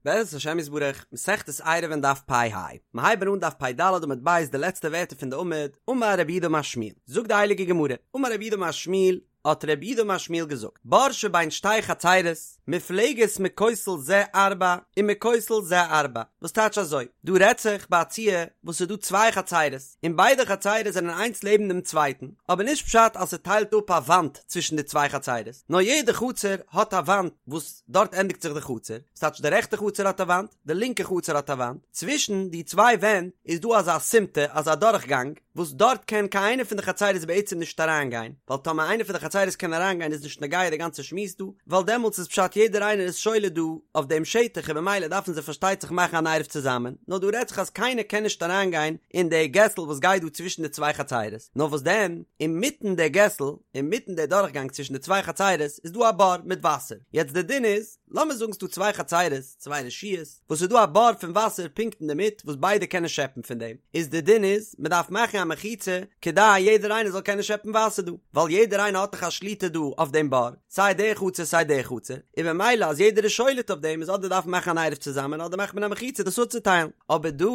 בעזרת השם יתברך, מסכת עירובין דף פ ה, מיר הייבן אן דף פ ד עמוד ב' די לעצטע ווערטער פון די עמוד, אמר רב יהודה אמר שמואל, זאגט די הייליגע גמרא, אמר רב יהודה אמר שמואל, האט רב יהודה אמר שמואל געזאגט, בור שבין שתי חצרות, מופלגת מכותל זה ארבע ומכותל זה ארבע, וואס טייטש אזוי, דא רעדט זיך ביי א ציור וואס ס'איז דא צוויי חצרות, און ביידע חצרות זענען איינס לעבן דעם צווייטן, אבער נישט פשט אז ס'טיילט אפ א וואנט צווישן די צוויי חצרות, נאר יעדע חצר האט א וואנט וואס דארט ענדיגט זיך די חצר, ס'טייטש די רעכטע חצר האט א וואנט, די לינקע חצר האט א וואנט, צווישן די צוויי ווענט איז דא אזא סימטא, אזא דורכגאנג, וואס דארט קען קיין איינע פון די חצרות בעצם נישט אריינגיין, ווייל טאמער איינע פון די חצרות קען אריינגיין איז נישט נוגע די גאנצע שמועס דא, ווייל דעמאלטס איז פשט יעדער איינער איז שולט דא אויף דעם שטח און במילא דארפן זיי פארשטייט זיך מאכן אן עירוב צוזאמען, נאר דא רעדט זיך אז קיינער קען נישט אריינגיין אין די געסל וואס גייט דא צווישן די צוויי חצרות, נאר וואס דען, אינמיטן די געסל, אינמיטן די דורכגאנג צווישן די צוויי חצרות איז דא א בור מיט וואסער, יעצט די דין איז, לאמיר זאגן ס'דא צוויי חצרות, צוויי רשויות, וואס ס'איז דא א בור פון וואסער פונקט אינדערמיט וואס ביידע קענען שעפן פון דעם, איז די דין איז, מ'דארף מאכן א מחיצה כדי יעדער איינער זאל קענען שעפן וואסער דא, ווייל יעדער איינער האט דאך א שליטה דא אויף דעם בור, סיי די חצר סיי די חצר, און במילא אז יעדער איז שולט אויף דעם איז אדער דארף מען מאכן אן עירוב צוזאמען אדער מאכט מען א מחיצה דאס אפצוטיילן, אבער דא,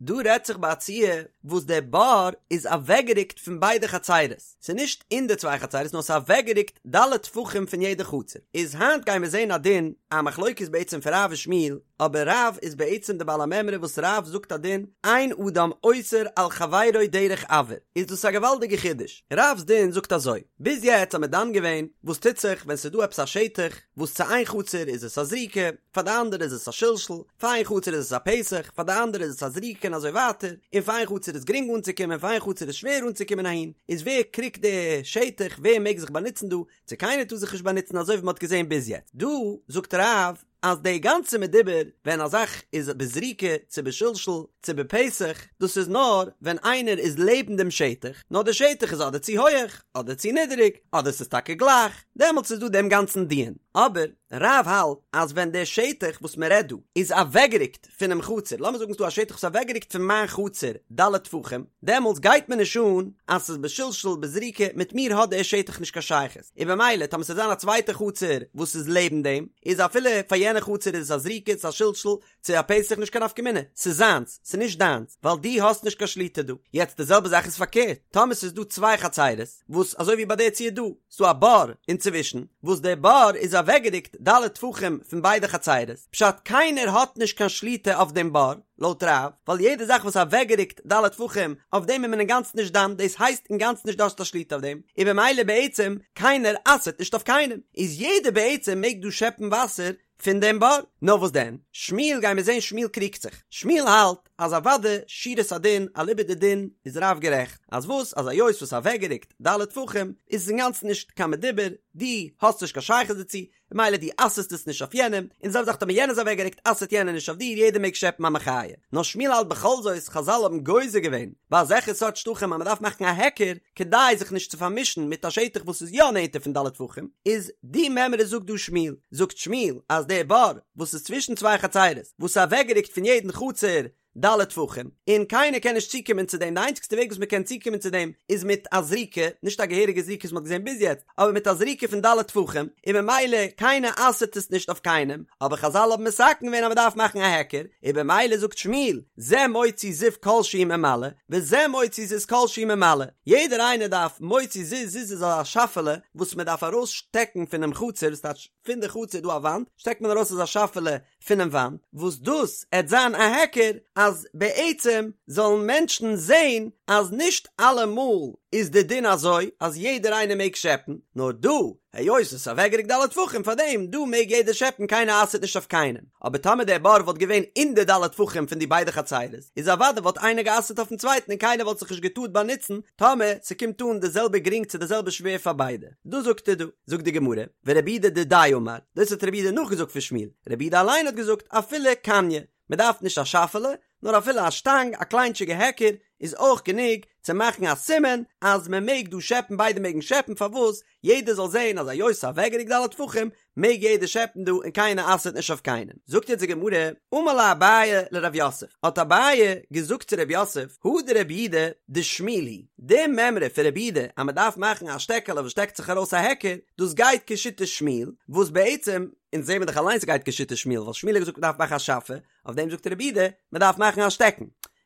דא רעדט זיך ביי א ציור וואס דער בור איז אוועקגערוקט פון ביידע חצרות, ס'איז נישט אין די צוויי חצרות נאר ס'איז אוועקגערוקט ד' טפחים פון יעדע חצר, איז היינט גייען מיר זעהן א דין, א מחלוקת בעצם פון רב ושמואל, אבער רב איז בעצם די בעל המימרא וואס רב זאגט א דין, אין אדם אוסר על חברו דרך אויר, איז דאס א געוואלדיגע חידוש, רב'ס דין זאגט אזוי, ביז יעצט האט מען דן געווען וואס טוט זיך ווען ס'איז דא עפעס א שטח וואס צו איין חצר איז עס א זריקה, פאר די אנדערע איז עס א שלשול, פאר איין חצר איז עס א פתח, פאר די אנדערע איז עס א זריקה און אזוי ווייטער, און פאר איין חצר איז גרינג אנצוקומען פאר איין חצר איז שווער אנצוקומען אהין, איז ווער קריגט די שטח, ווער מעג זיך באנוצן דא, צו קיינער טאר זיך נישט באנוצן אזוי ווי מען האט געזען ביז יעצט. דא זאגט רב אז די גאנצע מדובר ווען א זאך איז בזריקה צו בשלשול צו בפתח, דאס איז נאר ווען איינער איז לעבן דעם שטח, נאר די שטח איז אדער צו הויעך אדער צו נידעריג, אדער ס'איז טאקע גלייך, דעמאלטס איז דא דעם גאנצן דיון, אבער. רב האלט אז ווען דער שטח וואס מען רעדט דא איז אוועקגערוקט פונעם חצר, לאמיר זאגן ס'דא א שטח וואס איז אוועקגערוקט פון מיין חצר ד' טפחים, דעמאלטס גייט מיר נישט אן אז ס'איז בשלשול בזריקה, מיט מיר האט דער שטח נישט קיין שייכות, און במילא טאמער ס'וועט זיין א צווייטע חצר וואס איז לעבן דעם, איז אפילו פאר יענע חצר איז עס א זריקה צו א שלשול צו א פתח נישט קיין נפקא מינה, ס'איז זיינס, ס'איז נישט דיינס, ווייל דו האסט נישט קיין שליטה דא. יעצט די זעלבע זאך איז פארקערט, טאמער ס'איז דא צוויי חצרות, וואס אזוי ווי ביי די ציור דא, ס'דא א בור אינצווישן, וואס דער בור איז אוועקגערוקט ד' טפחים פון ביידע חצרות, פשט קיינער האט נישט קיין שליטה אויף דעם בור, לויט רב, ווייל יעדע זאך וואס אוועקגערוקט ד' טפחים, אויף דעם איז מען אינגאנצן נישט דן, דאס הייסט אינגאנצן נישט דו האסט א שליטה אויף דעם, און במילא בעצם קיינער אסר'ט נישט אויף קיינעם, איז יעדער בעצם מעג דא שעפן וואסער פון דעם בור. נאר וואס דען? שמואל גיימיר זעהן שמואל קריגט זיך. שמואל האלט אז אוודאי שורת הדין אליבא דדין איז רב גערעכט. אז וואס אז היות וואס אוועקגערוקט ד' טפחים איז עס אינגאנצן נישט קיין מדובר, דו האסט נישט קיין שייכות דערצו, ממילא דו אסר'סט עס נישט אויף יענעם, און די זעלבע זאך טאמער יענער איז אוועקגערוקט אסר'ט יענער נישט אויף דיר, יעדער מעג שעפן א מחיה. נאר שמואל האלט בכל זאת חזל האבן גוזר געווען ביי אזעלכע סארט שטחים אז מ'דארף מאכן א היכר, כדי זיך נישט צו פארמישן מיט א שטח וואס איז יא נענטער פון ד' טפחים, איז די מימרא זאגט דא שמואל, זאגט שמואל אז דער בור וואס איז צווישן צוויי חצרות וואס איז אוועקגערוקט פון יעדן חצר ד' טפחים, און קיינער קען נישט צוקומען צו דעם, די איינציגסטע וועג וואס מען קען צוקומען צו דעם איז מיט א זריקה, נישט א געהעריגע זריקה וואס מען האט געזען ביז יעצט, אבער מיט א זריקה פון ד' טפחים, און במילא קיינער אסר'ט עס נישט אויף קיינעם, אבער חזל האבן מתקן געווען אז מען דארף מאכן א היכר, און במילא זאגט שמואל, זה מוציא זיז כל שהוא ממלא, וזה מוציא זיז כל שהוא ממלא, יעדער איינער דארף מוציא זיז, זיז איז אזא שאפעלע וואס מען דארף ארויס שטעקן פונעם חצר, דאס טייטש פון די חצר איז דא א וואנט, שטעקט מען ארויס אזא שאפעלע פונעם וואנט, וואס דאס עט זיין א היכר אז בעצם זאלן מענטשן זען אז נישט אלעמאל איז די דין אזוי אז יעדער איינער מעג שעפן, נאר דא היות עס איז אוועקגערוקט ד' טפחים פאר דעם דא מעג יעדער שעפן קיינער אסר'ט נישט אויף קיינעם, אבער טאמער דער בור וואלט געווען אין די ד' טפחים פון די ביידע חצרות איז אוודאי וואלט איינער גע'אסר'ט אויפן צווייטן און קיינער וואלט זיך נישט געטארט באנוצן טאמער ס'קומט אן די זעלבע גרינג צו די זעלבע שווער פאר ביידע. דאס זאגט ער דא. זאגט די גמרא, ורב יהודה דידיה אמר, דאס האט רב יהודה נאכגעזאגט פון שמואל, רב יהודה אליין האט געזאגט אפילו קניא, מען דארף נישט א שאפעלע, נאר אפילו א שטאנג, א קליינטשיגע היכר, איז אויך גענוג צו מאכן א סימן אז מען מעג דא שעפן, ביידע מעגן שעפן, פארוואס? יעדער זאל זען אז היות ס'איז אוועקגערוקט ד' טפחים, מעג יעדער שעפן דא און קיינער אסר'ט נישט אויף קיינעם. זאגט יעצט די גמרא, אמר ליה אביי לרב יוסף, האט אביי געזאגט צו רב יוסף, הא דרב יהודה דשמואל היא, די מימרא פון רב יהודה אז מען דארף מאכן א שטעקעלע וואס שטעקט זיך ארויס א היכר, דאס גייט כשיטת שמואל, וואס בעצם. אונז זעהן מיר דאך אליינס ס'גייט כשיטת שמואל, ווייל שמואל האט געזאגט מ'דארף מאכן א שאפע, אויף דעם זאגט רבי יהודה מ'דארף מאכן א שטעקן.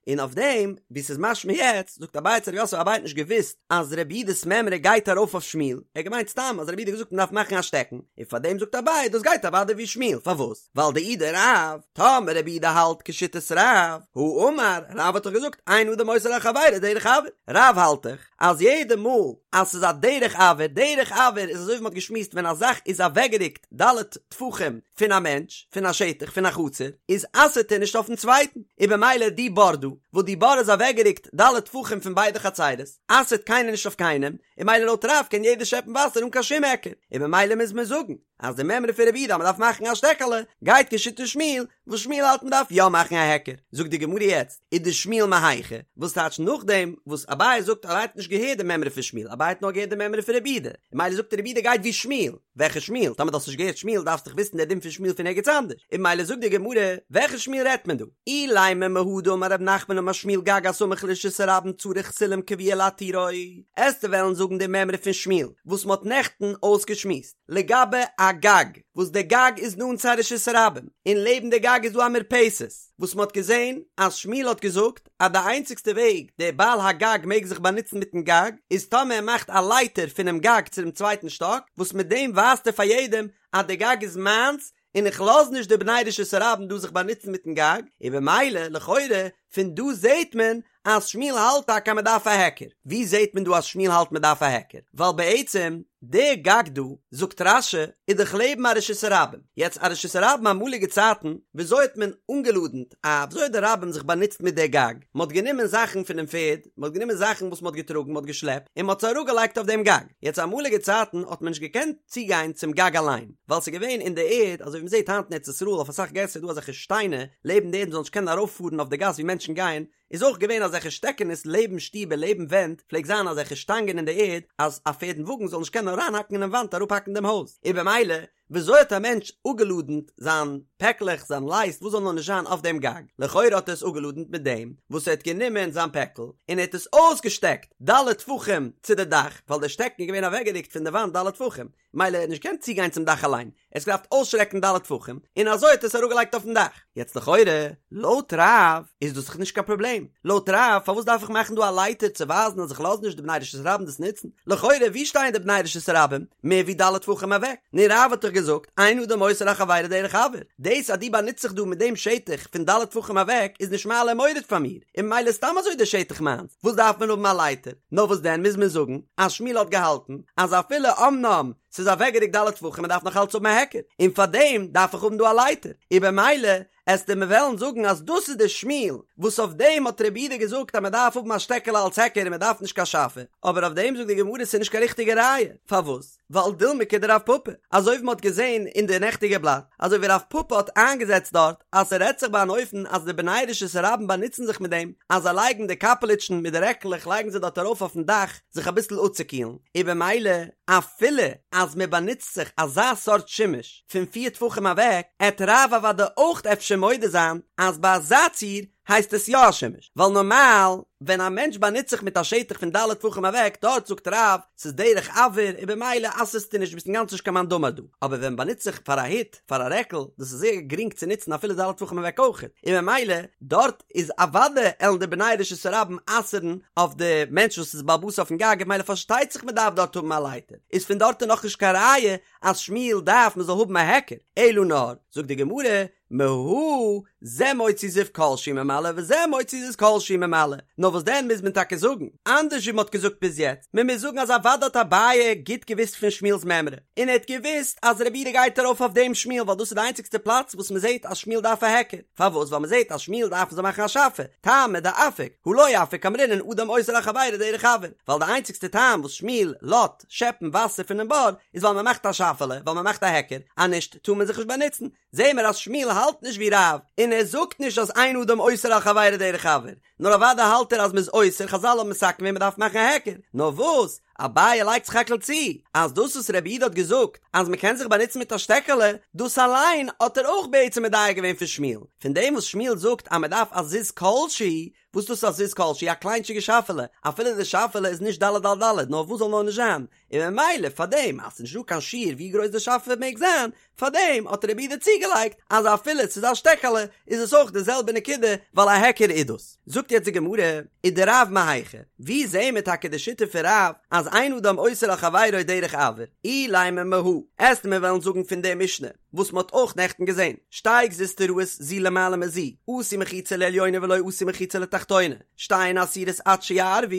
און אויף דעם ווי ס'איז משמע יעצט, זאגט אביי צו רב יוסף, אביי האט נישט געוואוסט אז רבי יהודה'ס מימרא גייט ארויף אויף שמואל, ער האט געמיינט סתם אז רבי יהודה האט געזאגט מ'דארף מאכן א שטעקן, און פאר דעם זאגט אביי דאס גייט אוודאי ווי שמואל, פארוואס? ווייל דאי דרב, טאמער רבי יהודה האלט כשיטת רב, הא אמר, רב האט דאך געזאגט אין אדם אוסר על חברו דרך אויר, רב האלט דאך אז יעדע מאל אז ס'איז א דרך אויר, דרך אויר איז אזוי ווי מ'האט געשמועסט ווען א זאך איז אוועקגערוקט ד' טפחים פון א מענטש, פון א שטח, פון א חצר, איז אסר'ט ער נישט אויפן צווייטן, און במילא די בור דא, וואס די בור איז אוועקגערוקט ד' טפחים פון ביידע חצרות, אסר'ט קיינער נישט אויף קיינעם, און במילא לויט רב קען יעדער שעפן וואסער אן קיין שום היכר, און במילא מוז מען זאגן אז די מימרא פון רבי יהודה אז מ'דארף מאכן א שטעקעלע, גייט כשיטת שמואל, וואס שמואל האלט מ'דארף יא מאכן א היכר. זאגט די גמרא יעצט, ודשמואל מהיכא, וואס טייטש נאכדעם וואס אביי זאגט אז ער האט נישט געהערט די מימרא פון שמואל, אביי האט נאר געהערט די מימרא פון רבי יהודה, און במילא זאגט ער רבי יהודה גייט ווי שמואל, וועלכע שמואל? טאמער דו האסט נישט געהערט שמואל דארפסט דאך וויסן דער דין פון שמואל פון ערגעץ אנדערש, און במילא זאגט די גמרא, וועלכע שמואל רעדט מען דא? אילימא מהא דאמר רב נחמן אמר שמואל גג הסמוך לרשות הרבים צריך סולם קבוע להתירו, עסטו וועלן זאגן די מימרא פון שמואל וואס מ'האט נעכטן אויסגעשמועסט לגבי א גג וואס די גג איז נאנט צו א רשות הרבים און לעבן די גג איז דא א מרפסת וואס מ'האט געזען אז שמואל האט געזאגט אז די איינציגסטע וועג דער בעל הגג מעג זיך באנוצן מיטן גג איז טאמער ער מאכט א לייטער פונעם גג צו דעם צווייטן שטאק וואס מיט דעם ווייזט ער פאר יעדעם אז די גג איז מיינס און איך לאז נישט די בני רשות הרבים דא זיך באנוצן מיטן גג, און במילא לכאורה פון דא זעהט מען אז שמואל האלט טאקע אז מען דארף א היכר. ווי זעהט מען דא אז שמואל האלט מען דארף א היכר? ווייל בעצם די גג דא, זאגט רש"י, איז דאך לעבן א רשות הרבים. יעצט א רשות הרבים אמאליגע צייטן, וויאזוי האט מען אנגעלאדענט א, וויאזוי האט די רבים זיך באנוצט מיט די גג? מען האט גענומען זאכן פונעם פערד, מען האט גענומען זאכן וואס מען האט געטראגן, מען האט געשלעפט, און מען האט עס אראפגעלייגט אויף דעם גג. יעצט אמאליגע צייטן האט מען נישט געקענט צוגיין צום גג אליין, ווייל ס'איז געווען אין די ערד, אזוי ווי מ'זעט היינט אין ארץ ישראל אויף אסאך געסער איז דא אזעלכע שטיינער לעבן די ערד מ'זאל נישט קענען ארויפפארן אויף די גאס ווי מענטשן גייען, איז אויך געווען אזעלכע שטעקענעס לעבן שטיבער לעבן ווענט פלעגט זיין אזעלכע שטאנגען אין די ערד אז א פערד און וואגן זאל נישט קענען אריינהאקן אינעם וואנט אראפהאקן דעם הויז, און במילא וויאזוי האט א מענטש אפגעלאדענט זיין פעקלעך זיין לייסט וואס זאל נאר נישט זיין אויף דעם גג, לכאורה האט ער עס אפגעלאדענט מיט דעם וואס ער האט גענומען זיין פעקל און ער האט עס אויסגעשטעקט ד' טפחים צו די דאך ווייל דער שטעקן איז געווען אוועקגערוקט פון די וואנט ד' טפחים, מילא ער האט נישט געקענט צוגיין צום דאך אליין, ער האט געדארפט אויסשטרעקן ד' טפחים, און אזוי האט ער עס אראפגעלייגט אויפן דאך. יעצט לכאורה, לויט רב איז דאס דאך נישט קיין פראבלעם, לויט רב פארוואס דארף איך מאכן דא א לייטער צו ווייזן אז איך לאז נישט די בני רשות הרבים דאס נוצן, לכאורה ווי שטייען די בני רשות הרבים? מער ווי ד' טפחים אוועק, נו רב האט דאך געזאגט אין אדם אוסר על חברו דרך אויר, דאס אז דו באנוצט זיך דא מיט דעם שטח פון ד' טפחים אוועק איז נישט מעלה ומוריד פאר מיר, און ממילא סתם אזוי דער שטח מיינס, וואס דארף מען האבן א לייטער? נאר וואס דען מוז מען זאגן אז שמואל האט געהאלטן אז אפילו אמנם ס'איז אוועקגערוקט ד' טפחים מען דארף נאך אלץ האבן א היכר און פארדעם דארף איך האבן דא א לייטער און במילא עסטו מיר וועלן זאגן אז דאס איז די שמואל וואס אויף דעם האט רבי יהודה געזאגט אז מען דארף האבן א שטעקעלע אלס היכר און מען דארף נישט קיין שאפע אבער אויף דעם זאגט די גמרא ס'איז נישט קיין ריכטיגע ראיה פארוואס ווייל דילמא כדרב פפא, אזוי ווי מ'האט געזען אין די נעכטיגע בלאט, אזוי ווי רב פפא האט איינגעזעצט דארט אז ס'רעדט זיך ביי אן אופן אז די בני רשות הרבים באנוצן זיך מיט דעם אז זיי לייגן די קאפעליטשן מיט די רעקלעך לייגן זיי דארט ארויף אויפן דאך זיך אביסל אפצוקילן, און במילא אפילו אז מ'באנוצט זיך אזא סארט שימוש פון פיר טפחים אוועק, עט רב אוודאי אויך אפשר מודה זיין אז ביי אזא ציור הייסט עס יא א שימוש, ווייל נארמאל ווען א מענטש באנוצט זיך מיט א שטח פון ד' טפחים אוועק דארט זאגט רב ס'איז דרך אויר און במילא אסר'סטו נישט ביסט אינגאנצן נישט קיין מאן דאמר דא, אבער ווען מ'באנוצט זיך פאר א הוט פאר א רעקל דאס איז זייער גרינג צו נוצן אפילו ד' טפחים אוועק אויכעט און במילא דארט איז אוודאי עלן די בני רשות הרבים אסר'ן אויף די מענטש וואס איז בעל הבית אויפן גג און במילא פארשטייט זיך מ'דארף דארט האבן א לייטער איז פון דארט איז נאכנישט קיין ראיה אז שמואל דארף מ'זאל האבן א היכר אלא נאר זאגט די גמרא מהא זה מוציא זיז כל שהוא ממלא וזה מוציא זיז כל שהוא ממלא, נאר וואס דען מוז מען טאקע זאגן, אנדערש ווי מען האט געזאגט ביז יעצט, מען מוז זאגן אז אוודאי האט אביי גוט געוואוסט פון שמואל'ס מימרא, און ער האט געוואוסט אז רבי יהודה גייט ארויף אויף דעם שמואל ווייל דאס איז די איינציגסטע פלאץ וואס מען זעט אז שמואל דארף א היכר, פארוואס ווייל מען זעט אז שמואל דארף מען זאל מאכן א שאפע, טעמא דאפיק, הא לא אפיק אמרינן אדם אוסר על חברו דרך אויר, ווייל די איינציגסטע טעם וואס שמואל לאט שעפן וואסער פונעם בור איז ווייל מען מאכט א שאפעלע, ווייל מען מאכט א היכר, אז נישט טאר מען זיך נישט באנוצן, זעהן מיר אז שמואל האלט נישט ווי רב, און ער זאגט נישט אז אין אדם אוסר על חברו דרך אויר, נאר אוודאי האלט ער אז מ'איז אוסר, חזל האבן מתקן געווען מ'דארף מאכן א היכר, נאר וואס? אביי לייגט סך הכל צו אז דאס וואס רבי יהודה האט געזאגט אז מען קען זיך באנוצן מיט א שטעקעלע, דאס אליין האט ער אויך בעצם מדייק געווען פון שמואל, פון דעם וואס שמואל זאגט אז מען דארף א זיז כל שהוא, וואס דאס איז א זיז כל שהוא, א קליינטשיגע שאפעלע, אפילו די שאפעלע איז נישט ד' על ד', נאר וואס זאל נאר נישט זיין, און ממילא פאר דעם אז ס'איז נישט דא קיין שיעור ווי גרויס די שאפע מעג זיין, פאר דעם האט רבי יהודה צוגעלייגט אז אפילו ס'איז א שטעקעלע איז עס אויך די זעלבע נקודה ווייל א היכר איז דאס. זאגט יעצט די גמרא, ודרב מהיכא, ווי זעהן מיר טאקע די שיטה פון רב אז אין אדם אוסר על חברו דרך אויר, אילימא מהא, עסט מיר וועלן זאגן פון די משנה, וואס מ'האט אויך נעכטן געזען, שתי גזוזטראות זו למעלה מזו, עשו מחיצה לעליונה ולא עשו מחיצה לתחתונה, שתיהן אסורות עד שיערבו,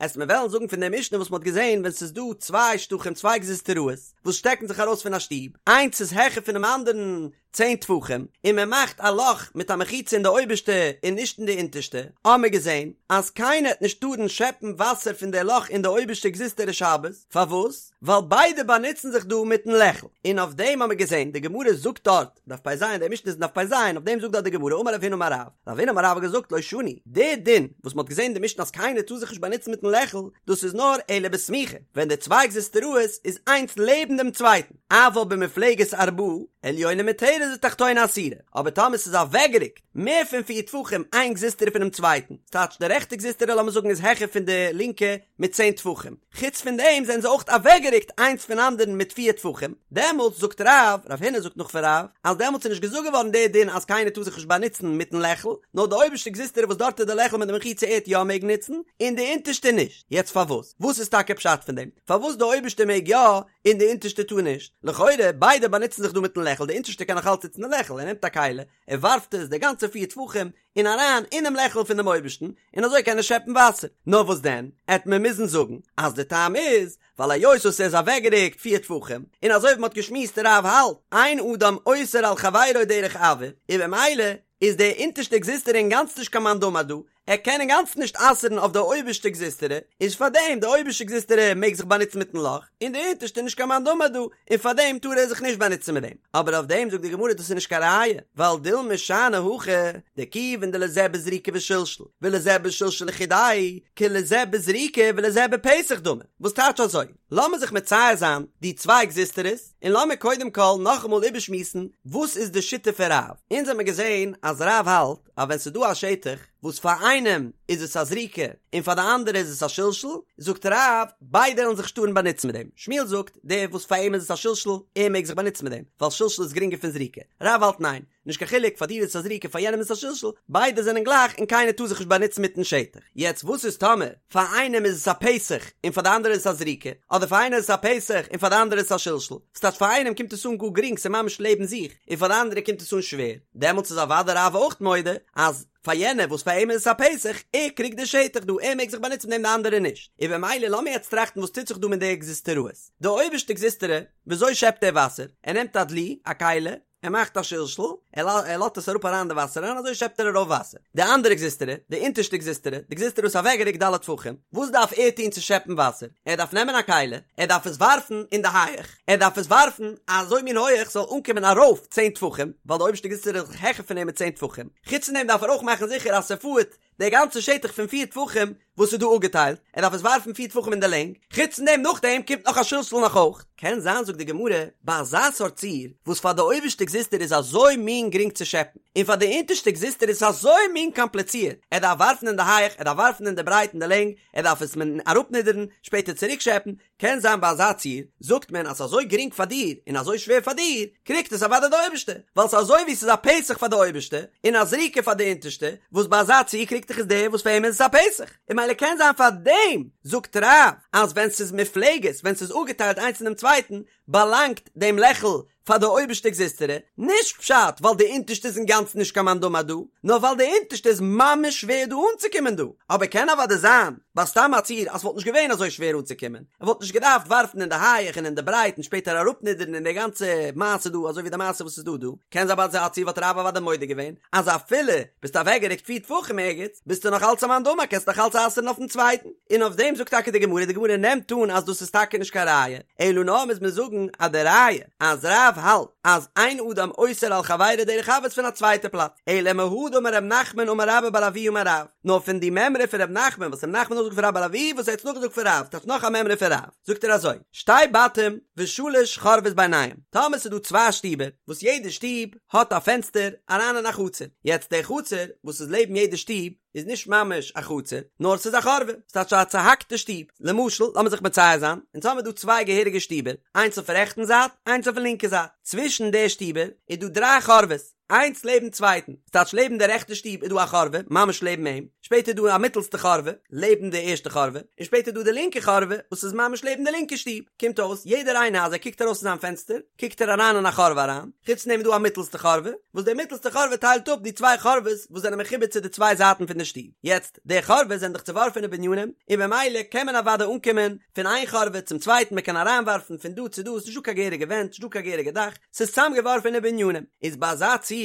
עסט מיר וועלן זאגן פון די משנה וואס מ'האט געזען ווען ס'איז דא צוויי שטחים צוויי גזוזטראות וואס שטעקן זיך ארויס פון א שטוב, איינס איז העכער פונעם אנדערן צען טפחים, און מען מאכט א לאך מיט א מחיצה אין די אויבערשטע און נישט אין די אונטערשטע, האמיר געזען אז קיינער העט נישט טארן שעפן וואסער פון די לאך אין די אויבערשטע גזוזטרא שבת, פארוואס? ווייל ביידע באנוצן זיך דא מיטן לעכל, און אויף דעם האמיר געזען, די גמרא זאגט דארט, דף פ"ז, די משנה איז אין דף פ"ז, אויף דעם זאגט דארט די גמרא, אמר רב הונא אמר רב, רב הונא אמר רב האט געזאגט לא שנו, די דין וואס מען האט געזען אין די משנה אז קיינער טאר זיך נישט באנוצן מיטן לעכל, דאס איז נאר אלא בסמוכה, ווען די צוויי גזוזטראות איז איינס לעבן דעם צווייטן, אבל במופלגת ארבעה, עליונה מותרת ותחתונה אסורה, אבער טאמער ס'איז אוועקגערוקט מער פון פיר טפחים איין גזוזטרא פונעם צווייטן, ס'טייטש די רעכטע גזוזטרא לאמיר זאגן איז העכער פון די לינקע מיט צען טפחים, חוץ פון דעם זענען זיי אויך אוועקגערוקט איינס פון אנדערן מיט פיר טפחים, דעמאלטס זאגט רב, רב הונא זאגט נאך פון רב, אז דעמאלטס איז נישט געזאגט געווארן די דין אז קיינער טאר זיך נישט באנוצן מיטן לעכל, נאר די אויבערשטע גזוזטרא וואס דארט איז די לעכל מיט די מחיצה ער'ט יא מעגן נוצן, און די אונטערשטע נישט. יעצט פארוואס? וואס איז טאקע פשט פון דעם? פארוואס די אויבערשטע מעג יא און די אונטערשטע טאר נישט? לכאורה ביידע באנוצן זיך דא מיטן לעכל, די אונטערשטע קען נאך אלץ נוצן די לעכל, ער נעמט א כלי, ער ווארפט עס די גאנצע פיר טפחים און אריין אינעם לעכל פון דעם אויבערשטן, און אזוי קען ער שעפן וואסער. נאר וואס דען, עט מען מוזן זאגן אז די טעם איז, ווייל היות וואס ער איז אוועקגערוקט פיר טפחים, און אזוי ווי מען האט געשמועסט רב האלט, אין אדם אוסר על חברו דרך אויר, און במילא איז די אונטערשטע גזוזטרא אינגאנצן נישט קיין מאן דאמר דא, ער קען אינגאנצן נישט אסר'ן אויף די אויבערשטע גזוזטרא, איז פארדעם די אויבערשטע גזוזטרא מעג זיך באנוצן מיטן לאך, און די אונטערשטע נישט קיין מאן דאמר דא, און פארדעם טאר ער זיך נישט באנוצן מיט דעם. אבער אויף דעם זאגט די גמרא דאס איז נישט קיין ראיה, ווייל דילמא שאני הכא, דכיון דלזה בזריקה ושלשול, ולזה בשלשול לחודיה, כלזה בזריקה ולזה בפתח דמי. וואס טייטש אזוי? לאמיר זיך מצייר זיין די צוויי גזוזטראות, און לאמיר קודם כל נאכאמאל איבערשמועסן וואס איז די שיטה פון רב. אונז האמיר געזען אז רב האלט אז ווען ס'איז דא א שטח וואס פאר איינעם איז עס א זריקה און פאר די אנדערע איז עס א שלשול, זאגט רב, ביידע וועלן זיך נישט טארן באנוצן מיט דעם. שמואל זאגט, דער וואס פאר אים איז עס א שלשול, ער מעג זיך באנוצן מיט דעם, ווייל שלשול איז גרינגער פון זריקה. רב האלט ניין, נישט קיין חילוק, פאר דיר איז עס א זריקה פאר יענעם איז עס א שלשול, ביידע זענען גלייך און קיינער טאר זיך נישט באנוצן מיטן שטח. יעצט וואס איז טאמער פאר איינעם איז עס א פתח און פאר די אנדערע איז עס א זריקה, אדער פאר איינער איז עס א פתח און פאר די אנדערע איז עס א שלשול, ס'טייטש פאר איינעם קומט עס אן גאר גרינג ס'איז ממש לעבן זיך, און פאר די אנדערע קומט עס אן שווער, דעמאלטס איז אוודאי רב אויך מודה אז פאר יענער וואס פאר אים איז עס א פתח, ער קריגט די שטח דא, ער מעג זיך באנוצן מיט דעם די אנדערע נישט. און במילא לאמיר יעצט טראכטן וואס טוט זיך דא מיט די גזוזטראות. די אויבערשטע גזוזטרא, וויאזוי שעפט ער וואסער? ער נעמט א דלי, א כלי, ער מאכט א שלשול, ער לאזט עס אראפ אריין אין די וואסער און אזוי שעפט ער ארויף וואסער. די אנדערע גזוזטרא, די אונטערשטע גזוזטרא, די גזוזטרא וואס איז אוועקגערוקט ד' טפחים, וואס דארף ער טון צו שעפן וואסער? ער דארף נעמען א כלי, ער דארף עס ווארפן אין די הייעך, ער דארף עס ווארפן אזוי מין הויעך ס'זאל אנקומען ארויף צען טפחים, ווייל די אויבערשטע גזוזטרא איז העכער פון אים מיט צען טפחים. חוץ פון דעם דארף ער אויך מאכן זיכער אז ס'פארט די גאנצע שטח פון פיר טפחים וואס איז דא אפגעטיילט, ער דארף עס ווארפן פיר טפחים אין די לענג, חוץ פון דעם נאכדעם קומט נאך א שלשול נאך אויך. קען זיין זאגט די גמרא, ביי אזא סארט ציור, וואס פאר די אויבערשטע גזוזטרא איז אזוי מין גרינג צו שעפן, און פאר די אונטערשטע גזוזטרא איז עס אזוי מין קאמפליצירט, ער דארף ווארפן אין די הייעך, ער דארף ווארפן אין די ברייט אין די לענג, ער דארף עס אראפנידערן, שפעטער צוריק שעפן, קען זיין ביי אזא ציור, זאגט מען אז ס'איז אזוי גרינג פאר דיר און אזוי שווער פאר דיר, קריגט עס אוודאי די אויבערשטע, ווייל ס'איז אזוי ווי ס'איז א פתח פאר די אויבערשטע, און א זריקה פאר די אונטערשטע, וואס ביי אזא ציור קריגט דאך עס דער וואס פאר אים איז עס א פתח, און ממילא קען זיין פאר דעם זאגט רב אז ווען ס'איז מופלגת, ווען ס'איז אפגעטיילט איינס פונעם צווייטן, באלאנגט דעם לעכל פאר די אויבערשטע גזוזטרא, נישט פשט ווייל די אונטערשטע איז אינגאנצן נישט קיין מאן דאמר דא, נאר ווייל די אונטערשטע איז ממש שווער דא אנצוקומען דא, אבער קען אוודאי זיין ביי סתם א ציור אז ס'וואלט נישט געווען אזוי שווער אנצוקומען, ער וואלט נישט געדארפט ווארפן אין די הייעך און אין די ברייט און שפעטער אראפנידערן און די גאנצע מעשה דא אזוי ווי די מעשה וואס איז דא דא, קען זיין ביי אזא ציור וואלט רב אוודאי מודה געווען אז אפילו ביסט אוועקגערוקט פיר טפחים ערגעץ ביסטו נאך אלץ א מאן דאמר קענסט נאך אלץ אסר'ן אויפן צווייטן, און אויף דעם זאגט טאקע די גמרא, די גמרא נעמט אן אז דאס איז טאקע נישט קיין ראיה, אלא נאר מוז מען זאגן אז די ראיה אז רב האלט אז אין אדם אוסר על חברו דרך אויר איז פון א צווייטע פלאץ, אלא מהא דאמר ר' נחמן אמר רבה בר אבוה אמר רב, נאר פון די מימרא פון ר' נחמן וואס ר' נחמן האט נאכגעזאגט פון רבה בר אבוה וואס ער האט נאכגעזאגט פון רב, טייטש נאך א מימרא פון רב, זאגט ער אזוי, שתי בתים ושלש חורבות ביניהם, טאמער ס'איז דא צוויי שטיבער וואס יעדע שטוב האט א פענסטער אריין אין א חצר, יעצט די חצר וואס איז לעבן יעדע שטוב איז נישט ממש א חצר, נאר ס'איז א חורבה, ס'טייטש א צוהאקטע שטוב, למשל לאמיר זיך מצייר זיין, אונז האמיר דא צוויי געהעריגע שטיבער, איינס אויפן רעכטן זייט, איינס אויפן לינקע זייט, צווישן די שטיבער איז דא דריי חורבות, איינס לעבן צווייטן, ס'טייטש לעבן די רעכטע שטוב איז דא א חורבה, ממש לעבן אים, שפעטער איז דא א מיטלסטע חורבה, לעבן די ערשטע חורבה, און שפעטער איז דא די לינקע חורבה, וואס איז ממש לעבן די לינקע שטוב, קומט אויס, יעדער איינער אז ער קוקט ארויס פון זיין פענסטער, קוקט ער אריין אין א חורבה אריין, חוץ פון דעם איז דא א מיטלסטע חורבה, וואס די מיטלסטע חורבה טיילט אפ די צוויי חורבות וואס זענען מחובר צו די צוויי זייטן פון די שטוב, יעצט, די חורבות זענען דאך צוווארפענע בנינים, און במילא קען מען אוודאי אנקומען פון איין חורבה צום צווייטן, מען קען אריינווארפן פון דא צו דא, ס'איז נישטא קיין געהעריגע ווענט, נישטא קיין געהעריגע דאך, ס'איז צוזאמגעווארפענע בנינים, איז ביי אזא ציור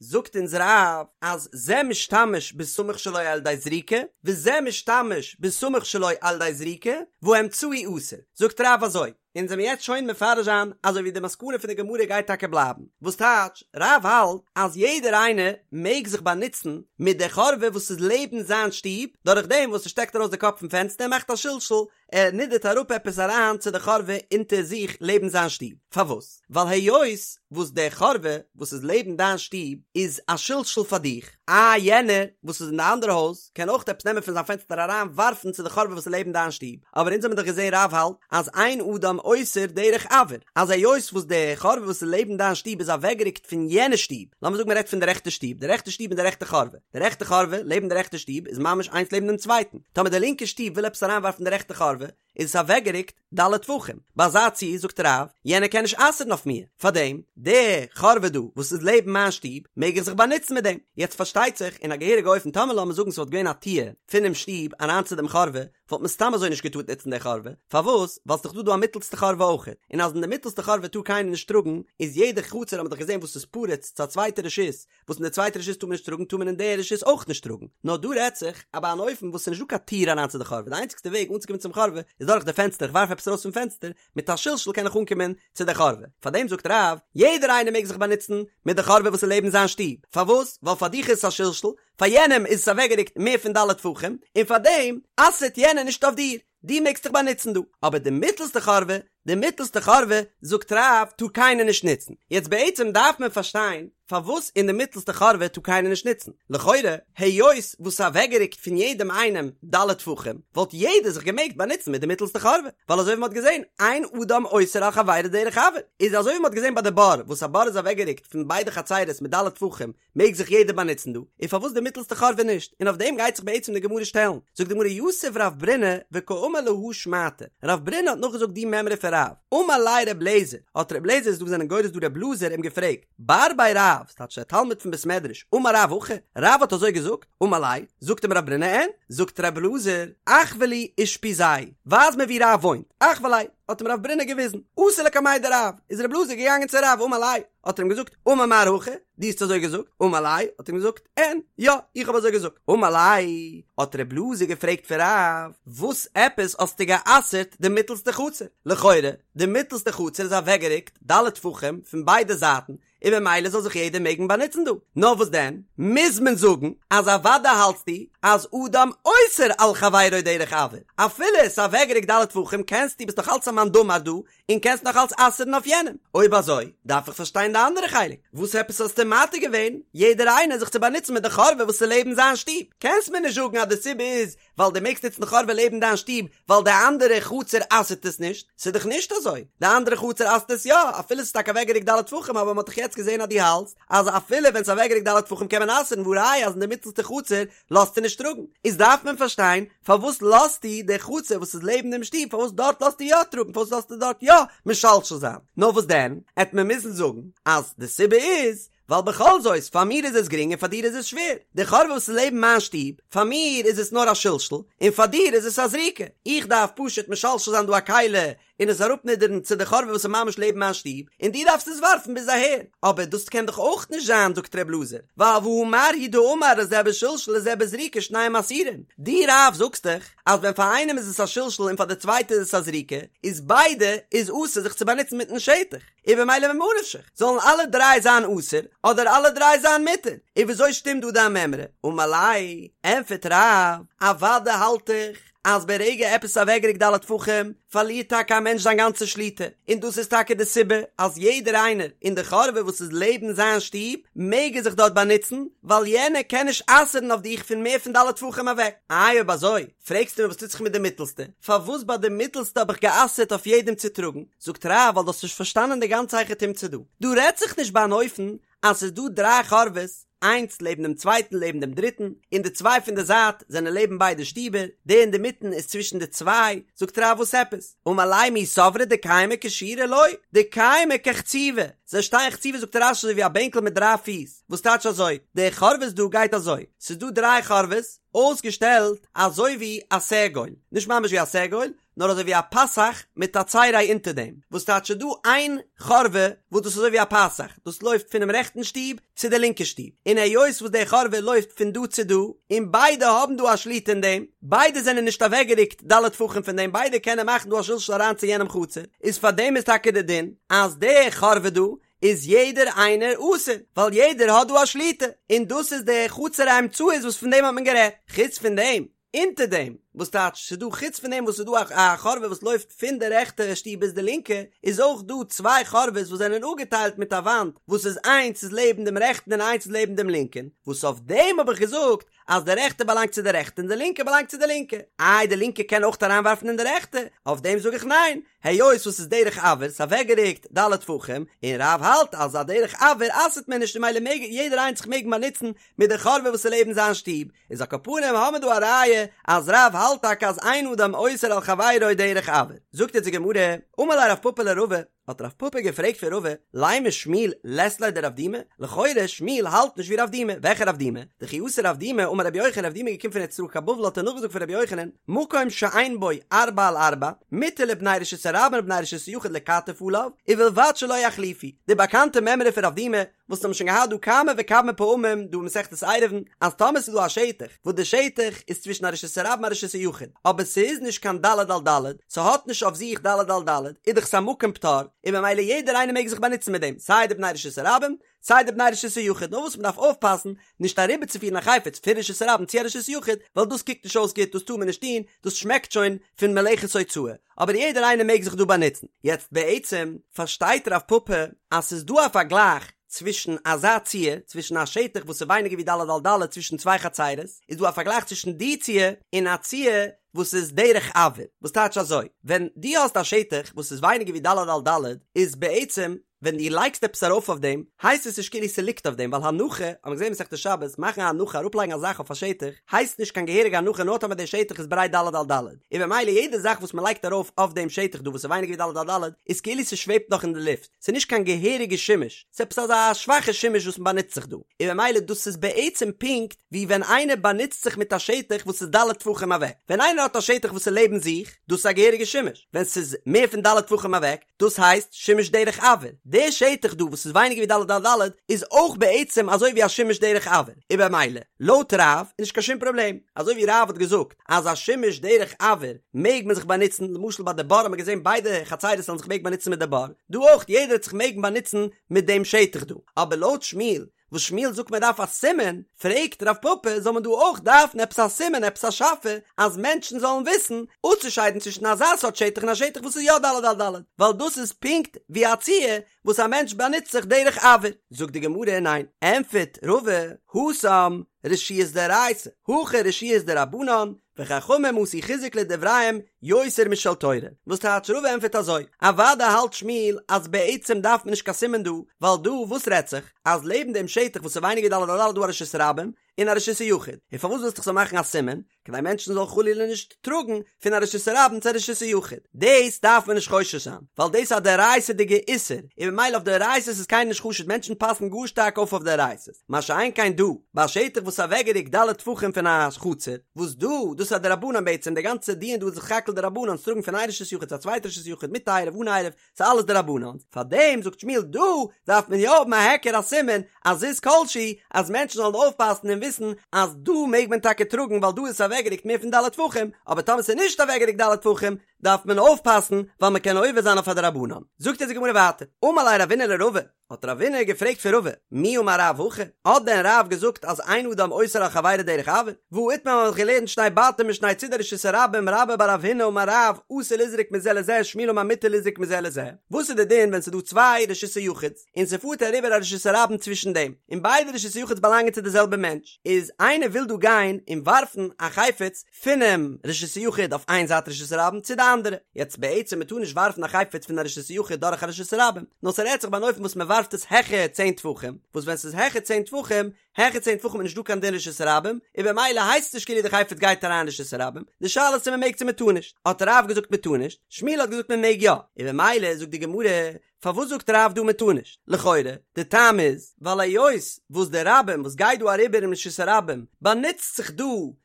זאגט אונז רב אז זה משתמש בסמוך שלו על ידי זריקה, וזה משתמש בסמוך שלו על ידי זריקה, והאמצעי אסור, זאגט רב אזוי, אונז וועמיר יעצט שוין מפרש זיין אזוי ווי די מסקנא פון די גמרא גייט טאקע בלייבן, וואס טייטש, רב האלט אז יעדער איינער מעג זיך באנוצן מיט די חורבה וואס איז לעבן זיין שטוב, דורך דעם וואס ער שטעקט ארויס די קאפ פון פענסטער און מאכט א שלשול, ער נידערט אראפ עפעס אריין צו די חורבה אונטער זיך לעבן זיין שטוב, פארוואס? ווייל היות וואס די חורבה וואס איז לעבן דיין שטוב איז א שלשול פאר דיך, אה יענער וואס איז אין די אנדערע הויז קען אויך עפעס נעמען פון זיין פענסטער אריין ווארפן צו די חורבה וואס איז לעבן דיין שטוב, אבער אונז האבן דאך געזען רב האלט אז אין אדם אוסר דרך אויר, אז היות וואס די חורבה וואס איז לעבן דיין שטוב איז אוועקגערוקט פון יענע שטוב, לאמיר זאגן מען רעדט פון די רעכטע שטוב, די רעכטע שטוב און די רעכטע חורבה, די רעכטע חורבה לעבן די רעכטע שטוב איז ממש איינס לעבן דעם צווייטן, טאמער די לינקע שטוב וויל עפעס אריינווארפן די רעכטע חורבה, איז עס אוועקגערוקט ד' טפחים, ביי אזא ציור זאגט רב, יענער קען נישט אסר'ן אויף מיר, פארדעם, די חורבה דא וואס איז לעבן מיין שטוב, מעג איך זיך באנוצן מיט דעם. יעצט פארשטייט זיך, אין א געהעריגע אופן טאמער לאמיר זאגן ס'וואלט געווען א טיר פונעם שטוב אריין צו דעם חורבה, וואלט מען סתם אזוי נישט געטארט נוצן די חורבה, פארוואס? ווייל ס'דאך דא דא א מיטלסטע חורבה אויכעט, און אז אין די מיטלסטע חורבה טאר קיינער נישט טראגן, איז יעדע חצר האט מען דאך געזען וואס איז פרוץ צו א צווייטע רשות, וואס אין די צווייטע רשות טאר מען נישט טראגן טאר מען אין די רשות אויך נישט טראגן, נאר דא רעדט זיך אז ביי אן אופן וואס ס'איז נישט דא קיין טיר אריין צו די חורבה, די איינציגסטע וועג אנצוקומען צום חורבה איז דורך די פענסטער, איך ווארף עפעס ארויס פון פענסטער, מיט א שלשול קען איך אנקומען צו די חורבה, פארדעם זאגט רב, יעדער איינער מעג זיך באנוצן מיט די חורבה וואס איז לעבן זיין שטוב, פארוואס? ווייל פאר דיך איז עס א שלשול, פאר יענעם איז עס אוועקגערוקט מער פון ד' טפחים, און פארדעם אסר'ט יענער נישט אויף דיר. דו מעגסט דיך באנוצן דא, אבער די מיטלסטע חורבה, די מיטלסטע חורבה, זאגט רב, טאר קיינער נישט נוצן. יעצט בעצם דארף מען פארשטיין פארוואס אין די מיטלסטע חורבה טאר קיינער נישט נוצן. לכאורה, היות וואס ס'איז אוועקגערוקט פון יעדעם איינעם ד' טפחים, וואלט יעדער זיך געמעגט באנוצן מיט די מיטלסטע חורבה, ווייל אזוי ווי מ'האט געזען, אין אדם אוסר על חברו דרך אויר, איז אזוי ווי מ'האט געזען ביי די בור, וואס א בור איז אוועקגערוקט פון ביידע חצרות מיט ד' טפחים, מעג זיך יעדער באנוצן דא, און פארוואס די מיטלסטע חורבה נישט? און אויף דעם גייט זיך בעצם די גמרא שטעלן. זאגט די גמרא יתיב רב ברונא וקאמר להא שמעתא, רב ברונא האט נאכגעזאגט די מימרא פון רב, אמר ליה רב לעזער, האט רב לעזער איז דא וואס זענען גורס דא רב אלעזר אים געפרעגט, בר בי רב, ס'טייטש דער תלמיד פון בית מדרש, אמר רב הכי, רב האט אזוי געזאגט? אמר ליה, זאגט אים רב ברונא אין, זאגט רב אלעזר, אחוי לי אושפיזיה, ווייז מיר ווי רב וואוינט, אחוי ליה, האט אים רב ברונא געוויזן, אתא לקמיה דרב, איז רב אלעזר געגאנגען צו רב, אמר ליה, האט ער אים געזאגט, אמר מר הכי, דו האסט אזוי געזאגט? אמר ליה, האט ער אים געזאגט, אין, יא, איך האב אזוי געזאגט. אמר ליה, האט רב אלעזר געפרעגט פון רב, וואס עפעס האסטו גע'אסר'ט די מיטלסטע חצר? לכאורה, די מיטלסטע חצר איז אוועקגערוקט ד' טפחים פון ביידע זייטן, און ממילא זאל זיך יעדער מעגן באנוצן דא. נאר וואס דען, מוז מען זאגן אז אוודאי האלטסטו אז אדם אוסר על חברו דרך אויר, אפילו עס איז אוועקגערוקט ד' טפחים קענסטו, ביסט נאך אלץ א מאן דאמר דא, און קענסט נאך אלץ אסר'ן אויף יענעם. אויב אזוי, דארף איך פארשטיין די אנדערע חלק. וואס עפעס האסטו מתיר געווען יעדער איינער זיך צו באנוצן מיט די חורבה וואס איז לעבן זיין שטוב? קענסט מיר נישט זאגן אז די סיבה איז ווייל דו מעגסט נוצן די חורבה לעבן דיין שטוב ווייל די אנדערע חצר אסר'ט עס נישט. ס'איז דאך נישט אזוי. די אנדערע חצר אסר'ט עס יא, אפילו ס'איז טאקע אוועקגערוקט ד' טפחים אבער מ'האט דאך יעצט געזען אז דו האלטסט אז אפילו ווען ס'איז אוועקגערוקט ד' טפחים קען מען אסר'ן והא ראיה אז אין די מיטלסטע חצר לאזטו נישט טראגן, איז דארף מען פארשטיין פארוואס לאזטו די חצר וואס איז לעבן דעם שטוב פארוואס דארט לאזטו יא טראגן פארוואס לאזטו דארט יא משלשל זיין, נאר וואס דען עט מען מוזן זאגן אז די סיבה איז ווייל בכל זאת פאר מיר איז עס גרינג און פאר דיר איז עס שווער, די חורבה וואס איז לעבן מיין שטוב פאר מיר איז עס נאר א שלשול און פאר דיר איז עס א זריקה, איך דארף פשוט משלשל זיין דא א כלי. און עס אראפנידערן צו די חורבה וואס איז ממש לעבן מיין שטוב, און דו דארפסט עס ווארפן ביז אהער. אבער דאס קען דאך אויך נישט זיין, זאגט ר' אלעזר, ווייל והא מר הוא דאמר לזה בשלשול לזה בזריקה שניהם אסורים. דו רב זאגסט דאך אז ווען פאר איינעם איז עס א שלשול און פאר די צווייטע איז עס א זריקה, איז ביידע איז אסור זיך צו באנוצן מיטן שטח. און במילא ממה נפשך, זאלן אלע דריי זיין אסור, אדער אלע דריי זיין מותר? און וויאזוי שטימט דא דיין מימרא? אמר ליה, ענטפערט רב, אוודאי האלט איך אז ברגע עפעס איז אוועקגערוקט ד' טפחים, פארלירט טאקע א מענטש זיין גאנצע שליטה, און דאס איז טאקע די סיבה אז יעדער איינער אין די חורבה וואס איז לעבן זיין שטוב, מעג ער זיך דארט באנוצן, ווייל יענער קען נישט אסר'ן אויף דיך פון מער פון ד' טפחים אוועק. איי אויב אזוי, פרעגסטו מיר וואס טוט זיך מיט די מיטלסטע? פארוואס ביי די מיטלסטע האב איך גע'אסר'ט אויף יעדעם צו טראגן? זאגט רב ווייל דו האסט נישט פארשטאנען די גאנצע היכי תמצא דא. דא רעדט זיך נישט ביי אן אופן אז ס'איז דא דריי חורבות, איינס לעבן דעם צווייטן לעבן דעם דריטן, און די צוויי פון די זייט זענען לעבן ביידע שטיבער, די אינדערמיטן איז צווישן די צוויי, זאגט רב וואס עפעס? אמר ליה מי סברת דקיימי כשורה לא, דקיימי כחצובה, זיי שטייען חצובה זאגט רש"י אזוי ווי א בענקל מיט דריי פיס, וואס טייטש אזוי? די חורבות דא גייט אזוי, ס'איז דא דריי חורבות, אויסגעשטעלט אזוי ווי א סגול, נישט ממש ווי א סגול, נאר אזוי ווי א פתח מיט א צירי אונטער דעם, וואס טייטש ס'איז דא איין חורבה וואס דאס איז אזוי ווי א פתח, דאס לויפט פונעם רעכטן שטוב צו די לינקע שטוב, און היות וואס די חורבה לויפט פון דא צו דא, און ביידע האבן דא א שליטה אין דעם, ביידע זענען נישט אוועקגערוקט ד' טפחים פון דעם, ביידע קענען מאכן דא א שלשול אריין צו יענעם חצר, איז פאר דעם איז טאקע די דין אז די חורבה דא איז יעדער איינער אסור, ווייל יעדער האט דא א שליטה, און דאס איז די חצר האמצעית וואס פון דעם האט מען גערעדט, חוץ פון דעם, אונטער דעם, וואס טייטש ס'איז דא חוץ פון דעם וואס ס'איז דא א חורבה וואס לויפט פון די רעכטע שטוב ביז די לינקע, איז אויך דא צוויי חורבות וואס זענען אפגעטיילט מיט א וואנט, וואס איז איינס איז לעבן דעם רעכטן און איינס איז לעבן דעם לינקען, וואס אויף דעם האב איך געזאגט אז די רעכטע באלאנגט צו די רעכטע און די לינקע באלאנגט צו די לינקע. איי די לינקע קען אויך אריינווארפן אין די רעכטע? אויף דעם זאג איך ניין, היות וואס ס'איז דרך אויר, ס'איז אוועקגערוקט ד' טפחים, און רב האלט אז א דרך אויר אסר'ט מען נישט און ממילא מעג יעדער איינס זיך מעגן באנוצן מיט די חורבה וואס איז לעבן זיין שטוב, איז על כל פנים האמיר דא א ראיה אז רב האלט טאקע אז אין אדם אוסר על חברו דרך אויר. זאגט יעצט די גמרא, אמר ליה רב פפא לרבא, האט רב פפא געפרעגט פון רבא, לימא שמואל לית ליה דרב דימי, לכאורה שמואל האלט נישט ווי רב דימי, וועלכע רב דימי? דכי אתא רב דימי אמר רבי יוחנן רב דימי איז געקומען פון ארץ ישראל קיין בבל האט ער נאכגעזאגט פון רבי יוחנן, מקום שאין בו ארבעה על ארבעה, מותר לבני רשות הרבים ולבני רשות היחיד לכתף עליו, ובלבד שלא יחליפו, די באקאנטע מימרא פון רב דימי, וואס האבן שוין געהאט דא כמה וכמה פעמים דא אין מסכת עירובין, אז טאמער ס'איז דא א שטח וואס די שטח איז צווישן א רשות הרבים און א רשות היחיד, אבער ס'איז נישט קיין ד' על ד', ס'האט נישט אויף זיך ד' על ד', איז דאך ס'א מקום פטור, און ממילא יעדער איינער מעג זיך באנוצן מיט דעם, סיי די בני רשות הרבים, סיי די בני רשות היחיד, נאר וואס מ'דארף אויפפאסן נישט אריבערצופירן א חפץ פון רשות הרבים צו א רשות היחיד, ווייל דאס קוקט נישט אויס גוט, דאס טאר מען נישט טון, דאס שמעקט שוין פון מלאכת הוצאה, אבער יעדער איינער מעג זיך דא באנוצן. יעצט בעצם פארשטייט רב פפא אז ס'איז דא א פארגלייך צווישן אזא ציור, צווישן א שטח וואס איז ווייניגער ווי ד' על ד' צווישן צוויי חצירות, איז דא א פארגלייך צווישן די ציור און א ציור וואס איז דרך אויר, וואס טייטש אזוי, ווען דו האסט א שטח וואס איז ווייניגער ווי ד' על ד' איז בעצם ווען דו לייגסט עפעס ארויף אויף דעם, הייסט עס נישט כאילו ס'ליגט אויף דעם, ווייל הנחה, האט מען געזען מסכת שבת, מאכן א הנחה, אראפלייגן א זאך אויף א שטח, הייסט נישט קיין געהעריגע הנחה נאר טאמער דער שטח איז ברייט ד' על ד', און במילא יעדע זאך וואס מ'לייגט ארויף אויף דעם שטח דא וואס איז ווייניגער ווי ד' על ד', איז כאילו ס'שוועבט נאך אין די לופט, ס'איז נישט קיין געהעריגע שימוש, ס'איז עפעס אזא שוואכע שימוש וואס מ'באנוצט זיך דא, און במילא דאס איז בעצם פונקט ווי ווען איינער באנוצט זיך מיט א שטח וואס איז ד' טפחים אוועק, ווען איינער האט א שטח וואס איז לעבן זיך, דאס איז א געהעריגע שימוש, ווען ס'איז מער פון ד' טפחים אוועק, דאס הייסט שימוש דרך אויר. די שטח דא וואס איז ווייניגער ווי ד' על ד' איז אויך בעצם אזוי ווי א שימוש דרך אויר, און במילא לויט רב איז נישט קיין שום פראבלעם, אזוי ווי רב האט געזאגט אז א שימוש דרך אויר מעג מען זיך באנוצן, למשל ביי די בור האט מען געזען ביידע חצירות זאלן זיך מעגן באנוצן מיט די בור, דא אויך יעדער וועט זיך מעגן באנוצן מיט דעם שטח דא, אבער לויט שמואל וואס שמואל זאגט מען דארף א סימן, פרעגט רב פפא זאל מען דא אויך דארפן עפעס א סימן עפעס א שאפע אז מענטשן זאלן וויסן אפצושיידן צווישן אזא סארט שטח און א שטח וואס איז יא ד' על ד', ווייל דאס איז פונקט ווי א ציור וואס א מענטש באנוצט זיך דרך אויר. זאגט די גמרא ניין, ענטפערט רבא, התם רשויות דאורייתא, הכא רשויות דרבנן, וחכמים עשו חיזוק לדבריהם יותר משל תורה, וואס טייטש רבא ענטפערט אזוי, אוודאי האלט שמואל אז בעצם דארף מען נישט קיין סימן דא, ווייל דא וואס רעדט זיך, אז לעבן דעם שטח וואס איז ווייניגער ד' על ד' איז דא א רשות הרבים, אין א רשות היחיד, און פארוואס ווילסטו איך זאל מאכן א סימן? כדי מענטשן זאלן חלילה נישט טראגן פון א רשות הרבים צו א רשות היחיד. דאס דארף מען נישט חושש זיין, ווייל דאס איז א דאורייתא'דיגע איסור, און ממילא אויף דאורייתא'ס איז קיינער נישט חשוד, מענטשן פאסן גאר שטארק אויף אויף דאורייתא'ס, מה שאין כן דא, ביי א שטח וואס איז אוועקגערוקט ד' טפחים פון א חצר, וואס דא, דאס איז א דרבנן בעצם, די גאנצע דיון דא איז סך הכל דרבנן, טראגן פון איין רשות יחיד צו א צווייטע רשות יחיד מיט עירוב אן עירוב, ס'איז אלעס דרבנן, פארדעם זאגט שמואל דא דארף מען יא האבן א היכר א סימן א זיז כלשהו אז מענטשן זאלן אויפפאסן און וויסן אז דא מעג מען טאקע טראגן ווייל דא איז עס אוועקגערוקט מער פון ד' טפחים, אבער טאמער ס'איז נישט אוועקגערוקט ד' טפחים דארף מען אויפפאסן ווייל מ'קען עובר זיין אויף א דרבנן. זאגט אונז די גמרא ווייטער, אמר ליה רבינא לרבא, האט רבינא געפרעגט פון רבא, מי אמר רב הכי? האט דען רב געזאגט אז אין אדם אוסר על חברו דרך אויר? והא איתמר מ'האט געלערנט שני בתים משני צידי רשות הרבים רבה בר רב הונא אמר רב אסור לזרוק מזה לזה שמואל אמר מותר לזרוק מזה לזה וואס איז די דין ווען ס'איז דא צוויי רשות היחיד'ס און ס'פארט אריבער א רשות הרבים צווישן דעם און ביידע רשות היחיד'ס באלאנגען צו די זעלבע מענטש איז איינער וויל דא גיין און ווארפן א חפץ פונעם רשות היחיד אויף איין זייט רשות הרבים צו די אנדערע. יעצט בעצם מען טאר נישט ווארפן א חפץ פון א רשות היחיד דורך א רשות הרבים, נאר ס'רעדט זיך ביי אן אופן וואס מען ווארפט עס העכער צען טפחים, וואס ווען ס'איז העכער צען טפחים, העכער צען טפחים איז נישט דא קיין דין רשות הרבים, און במילא הייסט עס נישט כאילו די חפץ גייט אריין אין רשות הרבים, די שאלה איז צו מען מעג צו מען טאר נישט, האט רב געזאגט מען טאר נישט, שמואל האט געזאגט מען מעג יא, און במילא זאגט די גמרא, פארוואס זאגט רב דא מען טאר נישט? לכאורה, די טעם איז, ווייל היות וואס די רבים וואס גייט דא אריבער אין רשות הרבים באנוצט זיך דא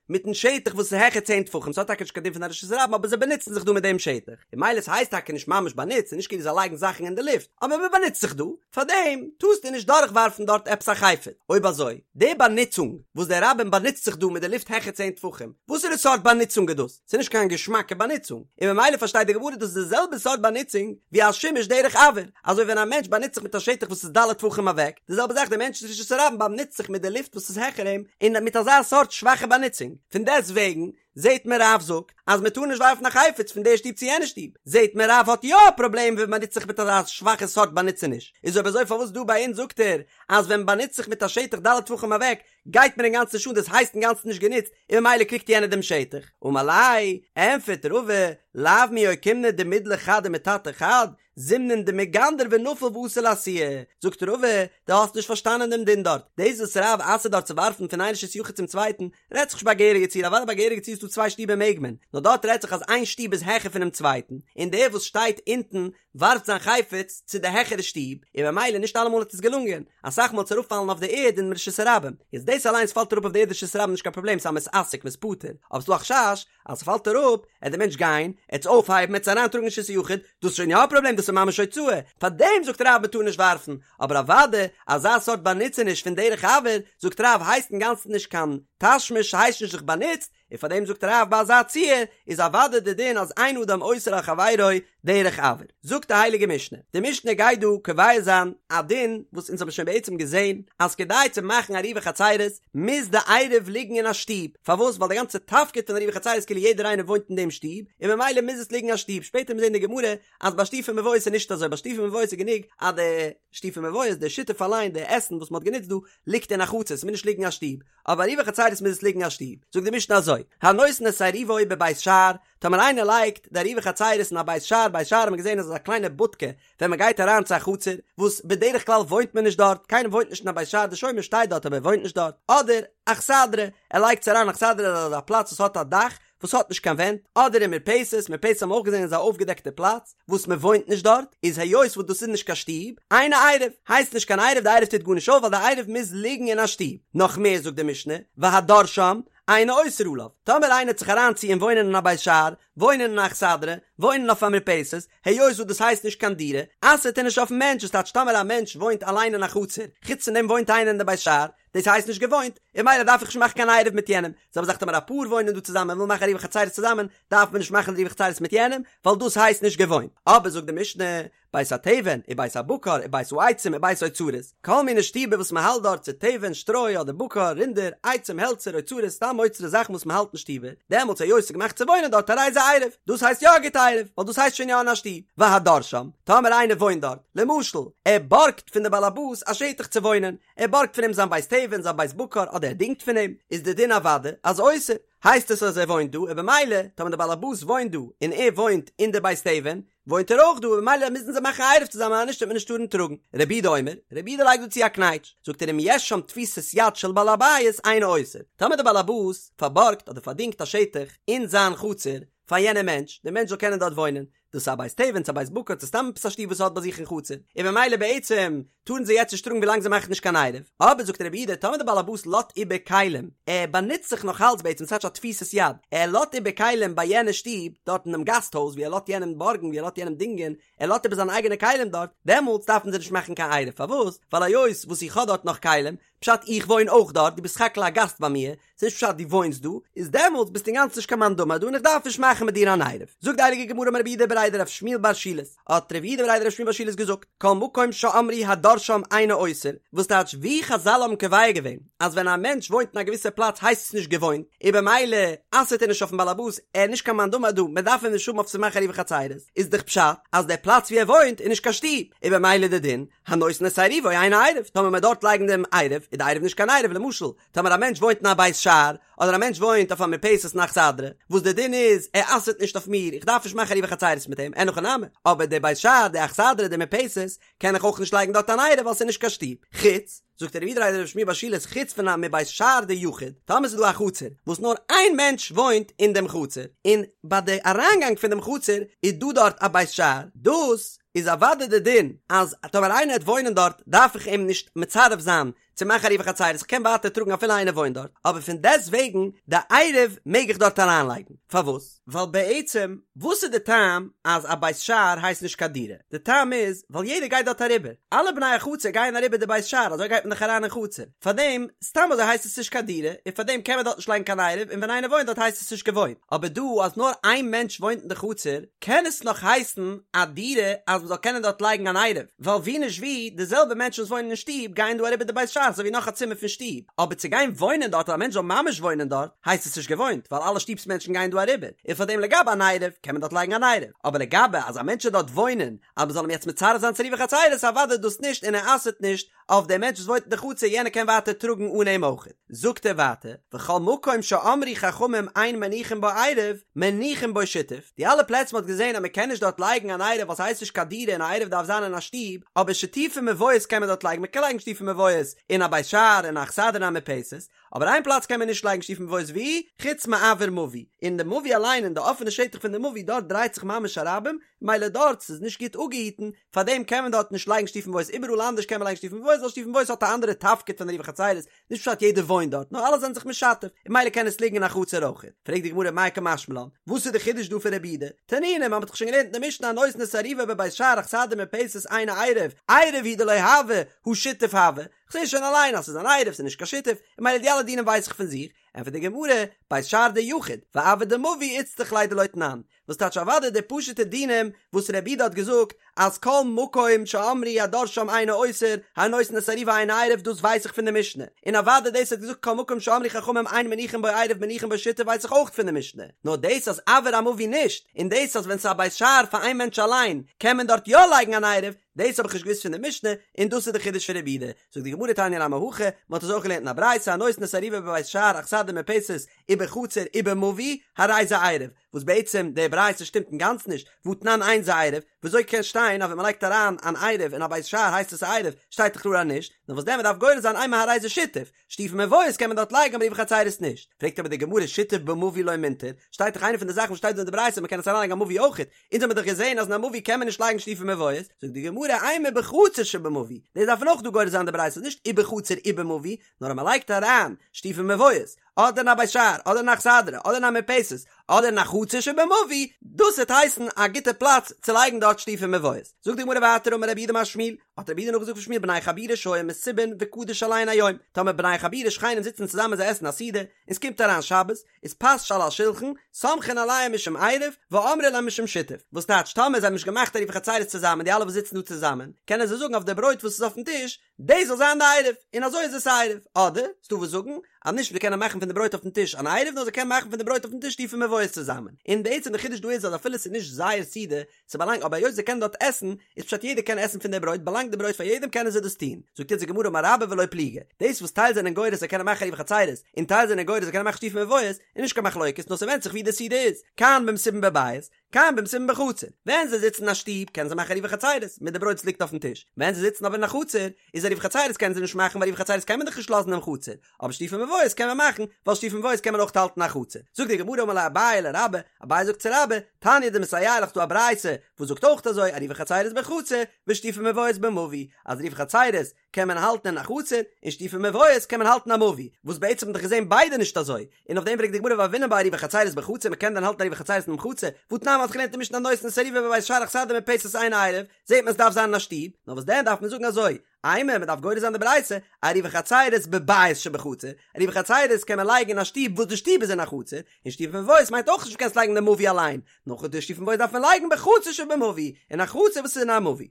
מיטן שטח וואס איז העכער צען טפחים, ס'האט טאקע נישט קיין דין פון א רשות הרבים אבער זיי באנוצן זיך דא מיט דעם שטח, און ממילא ס'הייסט טאקע נישט ממש באנוצט, ס'איז נישט כאילו זיי לייגן זאכן אין די לופט, אבער מען באנוצט זיך דא, פארדעם טארסטו נישט דורכווארפן דארט עפעס א חפץ. אויב אזוי, די באנוצונג וואס די רבים באנוצט זיך דא מיט די לופט העכער צען טפחים, וואסערע סארט באנוצונג איז דאס? ס'איז נישט קיין געשמאקע באנוצונג, און ממילא פארשטייט די גמרא דאס איז די זעלבע סארט באנוצונג ווי א שימוש דרך אויר, אזוי ווען א מענטש באנוצט זיך מיט א שטח וואס איז ד' טפחים אוועק, די זעלבע זאך דער מענטש אין רשות הרבים באנוצט זיך מיט די לופט וואס איז העכער אים, און מיט אזא סארט שוואכע באנוצונג. פון דעסט וועגן זעט מען רב זאגט אז מען טאר נישט ווארפן א חפץ פון די שטוב צו יענע שטוב, זעט מען רב האט יא א פראבלעם ווען מ'באנוצט זיך מיט אזא שוואכע סארט באנוצעניש, איז אויב אזוי פארוואס דא ביי אונז זאגט ער אז ווען מ'באנוצט זיך מיט א שטח ד' טפחים אוועק גייט מיר אינגאנצן נישט אן דאס הייסט אינגאנצן נישט גענוצט און ממילא קריגט יענער דעם שטח. אמר ליה, ענפערט רבא, לאו מי אוקימנא דמידלי חד ומטאטא חד, זימנין דמיגנדר ונפיל ואתי לאתויי. זאגט רבא, דו האסט נישט פארשטאנען דעם דין דארט. דאס וואס רב אסר'ט דארט צו ווארפן פון איין רשות יחיד צום צווייטן, רעדט זיך נישט ביי א געהעריגע ציור, אוודאי ביי א געהעריגע ציור איז דא צוויי שטיבער מעג מען, נאר דארט רעדט זיך אז איין שטוב איז העכער פונעם צווייטן, און דער וואס שטייט אונטן ווארפט זיין חפץ צו די העכערע שטוב, און במילא נישט אלעמאל האט עס געלונגען, אסאך מאל האט עס אראפפאלן אויף די ערד אין רשות הרבים, איז דאס אליינס פאלט אראפ אויף די ערד רשות הרבים נישט קיין פראבלעם ס'איז א מתעסק מ'איז פטור, אבער ס'דא א חשש אז ס'פאלט אראפ עט די מענטש גיין עט עס אויפהייבן עט עס אריינטראגן אין רשות היחיד, דאס איז שוין יא א פראבלעם דאס איז ממש הוצאה, פארדעם זאגט רב מ'טאר נישט ווארפן, אבער אוודאי אזא סארט באנוצעניש פון דרך אויר זאגט רב הייסט אינגאנצן נישט קיין תשמיש ס'הייסט נישט זיך באנוצט, און פאר דעם זאגט רב ביי אזא ציור איז אוודאי די דין אז אין אדם אוסר על חברו דרך אויר. זאגט די הייליגע משנה, די משנה גייט דא קובע זיין א דין וואס אונז האבן שוין בעצם געזען אז כדי צו מאכן עירובי חצירות מוז די עירוב ליגן אין א שטוב, פארוואס ווייל די גאנצע תפקיד פון עירובי חצירות כאילו יעדער איינער וואוינט אין דעם שטוב און ממילא מוז עס ליגן אין א שטוב, שפעטער מיר זען די גמרא אז ביי שיתופי מבואות איז נישט אזוי, ביי שיתופי מבואות איז גענוג אז די שיתופי מבואות די שיתוף אליין די עסן וואס מען האט גענוצט דא ליגט אין א חצר ס'מוז נישט ליגן אין א שטוב, אבער עירובי חצירות מוז עס ליגן אין א שטוב, זאגט די משנה אזוי, הנותן את עירובו בבית שער, טאמער איינער לייגט די עירובי חצירות אין א בית שער, בית שער האט מען געזען אז עס איז א קליינע בודקע ווען מען גייט אריין צו א חצר, וואס בדרך כלל וואוינט מען נישט דארט, קיינער וואוינט נישט אין א בית שער, די שומר שטייט דארט אבער ער וואוינט נישט דארט, אדער אכסדרה, ער לייגט עס אריין אכסדרה איז א פלאץ וואס האט א דאך, וואס האט נישט קיין ווענט, אדער אין מרפסת, מרפסת האבן מיר אויך געזען איז א אויפגעדעקטע פלאץ, וואס מען וואוינט נישט דארט, איז היות וואס דאס איז נישט קיין שטוב, אינו עירוב, הייסט נישט קיין עירוב, די עירוב טוט גארנישט אויף ווייל די עירוב מוז ליגן אין א שטוב, נאך מער זאגט די משנה, והדר שם, אינו אוסר עליו, טאמער איינער וועט זיך אריינציען וואוינען אין א בית שער, וואוינען אין א אכסדרה, וואוינען אויף א מרפסת, היות וואס דאס הייסט נישט קיין דירה, אסר'ט ער נישט אויפן מענטש, וואס טייטש טאמער א מענטש וואוינט אליין אין א חצר, חוץ פון דעם וואוינט איינער אין די בית שער, דאס הייסט נישט געוואוינט, און ממילא דארף איך נישט מאכן קיין עירוב מיט יענעם, זעלבע זאך טאמער א פאר וואוינען דא צוזאמען און ווילן מאכן עירובי חצירות צוזאמען, דארף מען נישט מאכן עירובי חצירות מיט יענעם, ווייל דאס הייסט נישט געוואוינט. אבער זאגט די משנה, בית התבן, ובית הבקר, ובית העצים, ובית האוצרות, כל מיני שטיבער וואס מען האלט דארט צו תבן, שטרוי, אדער בקר, רינדער, עצים, העלצער, אוצרות, סתם אוצרות זאכן וואס מען האלט אין שטיבער, דעמאלטס היות ס'איז געמאכט צו וואוינען דארט הרי זה עירוב, דאס הייסט יא א גוטע עירוב, ווייל דאס הייסט שוין יא אין א שטוב. והדר שם, טאמער איינער וואוינט דארט, למשל, ער בארגט פון די בעל הבית א שטח צו וואוינען, ער בארגט פון אים זיין בית תבן, זיין בית בקר, אדער ער דינגט פון אים, איז די דין אוודאי אז אוסר, הייסט עס אז ער וואוינט דא, און במילא, טאמער די בעל הבית וואוינט דא, און ער וואוינט אין די בית תבן, וואוינט ער אויך דא און ממילא מוזן זיי מאכן א עירוב צוזאמען אז נישט וועט מען נישט טארן טראגן. רבי יהודה אומר, רבי יהודה לייגט דא צו א קנייטש, זאגט ער אם יש שם תפיסת יד של בעל הבית אינו אוסר, טאמער דער בעל הבית פארבארגט אדער פארדינגט א שטח אין זיין חצר פאר יענעם מענטש, דער מענטש זאל קענען דארט וואוינען, דאס איז א בית תבן צו א בית בקר צו סתם עפעס א שטוב וואס ער האט ביי זיך אין חצר, און ממילא בעצם טארן זיי יעצט נישט טראגן ווילאנג זיי מאכן נישט קיין עירוב, אבער זאגט רבי יהודה טאמער דער בעל הבית לאזט איבער כלים, ער באנוצט זיך נאך אלץ בעצם ס'טייטש א תפיסת יד, ער לאזט איבער כלים ביי יענע שטוב, דארט אינעם גאסט הויז ווי ער לאזט יענעם בארגן ווי ער לאזט יענעם דינגען, ער לאזט איבער זיינע אייגענע כלים דארט, דעמאלטס דארפן זיי נישט מאכן קיין עירוב, פארוואס? ווייל היות וואס איך האב דארט נאך כלים, פשט איך וואוין אויך דארט, דו ביסט סך הכל א גאסט ביי מיר, ס'איז נישט פשט דו וואוינסט דא, איז דעמאלטס ביסטו אינגאנצן נישט קיין מאן דאמר דא און איך דארף נישט מאכן מיט דיר אן עירוב. זאגט די הייליגע גמרא אמר רב יהודה בריה דרב שמואל בר שילת, האט רב יהודה בריה דרב שמואל בר שילת געזאגט, כל מקום שאמרו הדר שם אינו אוסר, וואס טייטש ווי חזל האבן קובע געווען אז ווען א מענטש וואוינט אין א געוויסע פלאץ הייסט עס נישט געוואוינט, און במילא אסר'ט ער נישט אויפן בעלעבאס, ער איז נישט קיין מאן דאמר דא, מען דארף אים נישט האבן אויף צו מאכן עירובי חצירות, איז דאך פשט אז דער פלאץ ווי ער וואוינט איז נישט קיין שטוב, און במילא די דין, הנותן את עירובו אינו עירוב, טאמער מען דארט לייגן דעם עירוב, איז די עירוב נישט קיין עירוב, למשל, טאמער א מענטש וואוינט אין א בית שער, אדער א מענטש וואוינט אויף א מרפסת אין אכסדרה, וואס די דין איז, ער אסר'ט נישט אויף מיר, איך דארף נישט מאכן עירובי חצירות מיט אים, אין הכי נמי, אבער די בית שער, די אכסדרה, די מרפסת, קען איך אויך נישט לייגן דארט אן עירוב ווייל ס'איז נישט קיין שטוב. חוץ, זאגט רב יהודה בריה דרב שמואל בר שילת, חוץ פון א מבית שער דיחיד, טאמער ס'איז דא א חצר, וואס נאר איין מענטש וואוינט אין דעם חצר, און ביי די אריינגאנג פון דעם חצר איז דא דארט א בית שער, דאס איז אוודאי די דין אז טאמער איינער וועט וואוינען דארט דארף איך אים נישט מצרף זיין צו מאכן עירובי חצירות, איך קען ווייטער טראגן אפילו איינער וואוינט דארט, אבער פון דעסט וועגן די עירוב מעג איך דארט אריינלייגן, פארוואס? ווייל בעצם וואס איז די טעם אז א בית שער הייסט נישט קיין דירה? די טעם איז ווייל יעדער גייט דארט אריבער, אלע בני החצר גייען אריבער די בית שער אזוי גייט מען דאך אריין אין חצר, פארדעם סתם אזוי הייסט עס נישט קיין דירה, און פארדעם קען מען דארט נישט לייגן קיין עירוב און ווען איינער וואוינט דארט הייסט עס נישט געוואוינט, אבער דא אז נאר איין מענטש וואוינט אין די חצר קען עס נאך הייסן א דירה אז מ'זאל קענען דארט לייגן אן עירוב, ווייל ווי נישט ווי, די זעלבע מענטשן וואס וואוינען אין שטוב גייען דא אריבער די בית שער אזוי ווי נאך א צימער פון שטוב, אבער צו גיין וואוינען דארט אז א מענטש זאל ממש וואוינען דארט הייסט עס נישט געוואוינט ווייל אלע שטוב'ס מענטשן גייען דא אריבער, און פארדעם לגבי אן עירוב קען מען דארט לייגן אן עירוב, אבער לגבי אז א מענטש זאל דארט וואוינען אז מ'זאל אים יעצט מצרף זיין צו עירובי חצירות אוודאי דאס נישט און ער אסר'ט נישט אויף דעם מענטש וואס וואוינט אין די חצר יענער קען ווייטער טראגן אן אים אויך. זאגט ער ווייטער, וכל מקום שאמרו חכמים אין מניחין בו עירוב, מניחין בו שיתוף, די אלע פלעצער מ'האט געזען אז מ'קען נישט דארט לייגן אן עירוב ווייל ס'הייסט נישט קיין דירה און א עירוב דארף זיין אין א שטוב, אבער שיתופי מבואות קען מען דארט לייגן, מ'קען לייגן שיתופי מבואות אין א בית שער אין א אכסדרה אין א מרפסת, אבער איין פלאץ קען מען נישט לייגן שיתופי מבואות ווי? חוץ מאויר מבוי, אין די מבוי אליין אין די אפענע שטח פון די מבוי דארט דרייט זיך ממש א רבים, מילא דארט ס'איז נישט גוט אפגעהיטן, פארדעם קען מען דארט נישט לייגן שיתופי מבואות איבעראל אנדערש קען מען לייגן שיתופי מבואות ווייל שיתופי מבואות האט א אנדערע תפקיד פון עירובי חצירות, נישט פשט יעדער וואוינט דארט נאר אלע זענען זיך משתף און מילא קען עס ליגן אין א חצר אויך. פרעגט די גמרא מאי קא משמע לן, וואס איז די חידוש דא פון רבי יהודה? תנינא, מען האט דאך שוין געלערנט אין די משנה הנותן את עירובו בבית שער אכסדרה מרפסת אינו עירוב, עירוב הוא דלא הוי, הא שיתוף הוי, כ'זע שוין אליין אז ס'איז אן עירוב ס'איז נישט קיין שיתוף, און מילא די אלע דינים ווייס איך פון זיך, ענטפערט די גמרא, בית שער דיחיד, ואויר דמבוי איצטריך ליה דלא תנן, וואס טייטש אוודאי די פשוטע דינים וואס רבי יהודה האט געזאגט אז כל מקום שאמרו הדר שם אינו אוסר הנותן את עירובו אינו עירוב דאס ווייס איך פון די משנה און אוודאי דאס האט געזאגט כל מקום שאמרו חכמים אין מניחין בו עירוב מניחין בו שיתוף ווייס איך אויך פון די משנה נאר דאס אז אויר המבוי נישט און דאס אז ווען ס'איז א בית שער פאר איין מענטש אליין קען מען דארט יא לייגן אן עירוב דאס האב איך נישט געוואוסט פון די משנה און דאס איז די חידוש פון רבי יהודה זאגט די גמרא תניא נמי הכי מען האט עס אויך געלערנט אין א ברייתא הנותן את עירובו בבית שער אכסדרה מרפסת ובחצר ובמבוי הרי זה עירוב וואס בעצם די ברייתא שטימט אינגאנצן נישט, והתנן אין זה עירוב, וויאזוי קען שטיין אז ווען מ'לייגט אריין אן עירוב אין א בית שער הייסט עס א עירוב, שטייט דאך קלאר אז נישט, נאר וואס דען מ'דארף גורס זיין אימא הרי זה שיתוף, שיתופי מבואות קען מען דארט לייגן אבער עירובי חצירות נישט, פרעגט אבער די גמרא שיתוף במבוי לא מינטר, שטייט דאך איינע פון די זאכן וואס שטייט דא אין די ברייתא מ'קען עס אריינלייגן אין א מבוי אויכעט, אונז האמיר דאך געזען אז אין א מבוי קען מען נישט לייגן שיתופי מבואות, זאגט די גמרא אימא בחצר שבמבוי, דאס דארף מען אויך דא גורס זיין די ברייתא נישט ובחצר ובמבוי, נאר אז מ'לייגט אריין שיתופי מבואות אדער אין א בית שער, אדער אין א אכסדרה, אדער אין א מרפסת, אדער אין א חצר שבמבוי, דאס וועט הייסן א גוטע פלאץ צו לייגן דארט שיתופי מבואות. זאגט די גמרא ווייטער אמר רב יהודה אמר שמואל, האט רב יהודה נאכגעזאגט פון שמואל בני חבורה שהיו מסובין וקדש עליהן היום, טאמער בני חבורה שכנים זיצן צוזאמען זיי עסן א סעודה, און ס'קומט אריין שבת, איז פת שעל השולחן, סומכין עליה משום עירוב, ואמרי לה משום שיתוף. וואס טייטש טאמער זיי האבן נישט געמאכט עירובי חצירות צוזאמען די אלע וואס זיצן דא צוזאמען, קענען זיי זאגן אויף די ברויט וואס איז אויפן טיש, דאס זאל זיין די עירוב, און אזוי איז עס א עירוב, אדער ס'דא וואס זאגן אז נישט זיי קענען מאכן פון די ברויט אויפן טיש אן עירוב נאר זיי קענען מאכן פון די ברויט אויפן טיש שיתופי מבואות צוזאמען, און בעצם די חידוש דא איז אז אפילו ס'איז נישט זייער סעודה, ס'באלאנגט אבער היות זיי קענען דארט עסן, איז פשט יעדער קען עסן פון די ברויט באלאנגט די ברויט פאר יעדעם קענען זיי דאס טון, זאגט יעצט די גמרא אמר רבה ולא פליגי, דאס וואס טייל זענען גורס זיי קענען מאכן עירובי חצירות, און טייל זענען גורס זיי קענען מאכן שיתופי מבואות, איז נישט קיין מחלוקת נאר ס'ווענדט זיך ווי די סעודה איז, כאן במסובין בבית. כאן במסובין בחצר, ווען זיי זיצן אין א שטוב קענען זיי מאכן עירובי חצירות מיט די ברויט וואס ליגט אויפן טיש, ווען זיי זיצן אבער אין א חצר איז עירובי חצירות קענען זיי נישט מאכן ווייל עירובי חצירות קען מען דאך נישט לאזן אין חצר, אבער שיתופי מבואות קען מען מאכן, ווייל שיתופי מבואות קען מען אויך האלטן אין א חצר. זאגט די גמרא אמר ליה אביי לרבה, אביי זאגט צו רבה, תניא דמסייע לך ס'דא א ברייתא וואס זאגט אויך אזוי עירובי חצירות בחצר ושיתופי מבואות במבוי, אז עירובי חצירות קען מען האלטן אין א חצר, און שיתופי מבואות קען מען האלטן אין א מבוי, וואס בעצם האט מען דאך געזען ביידע נישט אזוי, און אויף דעם פרעגט די גמרא והוינן בה עירובי חצירות בחצר מען קען דען האלטן עירובי חצירות אינעם חצר, והתנן מ'האט געלערנט אין משנה הנותן את עירובו בבית שער אכסדרה מרפסת אין עירוב, זעט מען עס דארף זיין אין א שטוב, נאר וואס דען דארף מען זאגן אזוי, אימא מען דארף גורס זיין די ברייתא, עירובי חצירות בבית שבחצר, עירובי חצירות קען מען לייגן אין א שטוב וואס די שטוב איז אין א חצר, און שיתופי מבואות מיינט אויך נישט קענסט לייגן אין די מבוי אליין, נאר די שיתופי מבואות דארף מען לייגן בחצר שבמבוי, אין א חצר וואס איז אין א מבוי.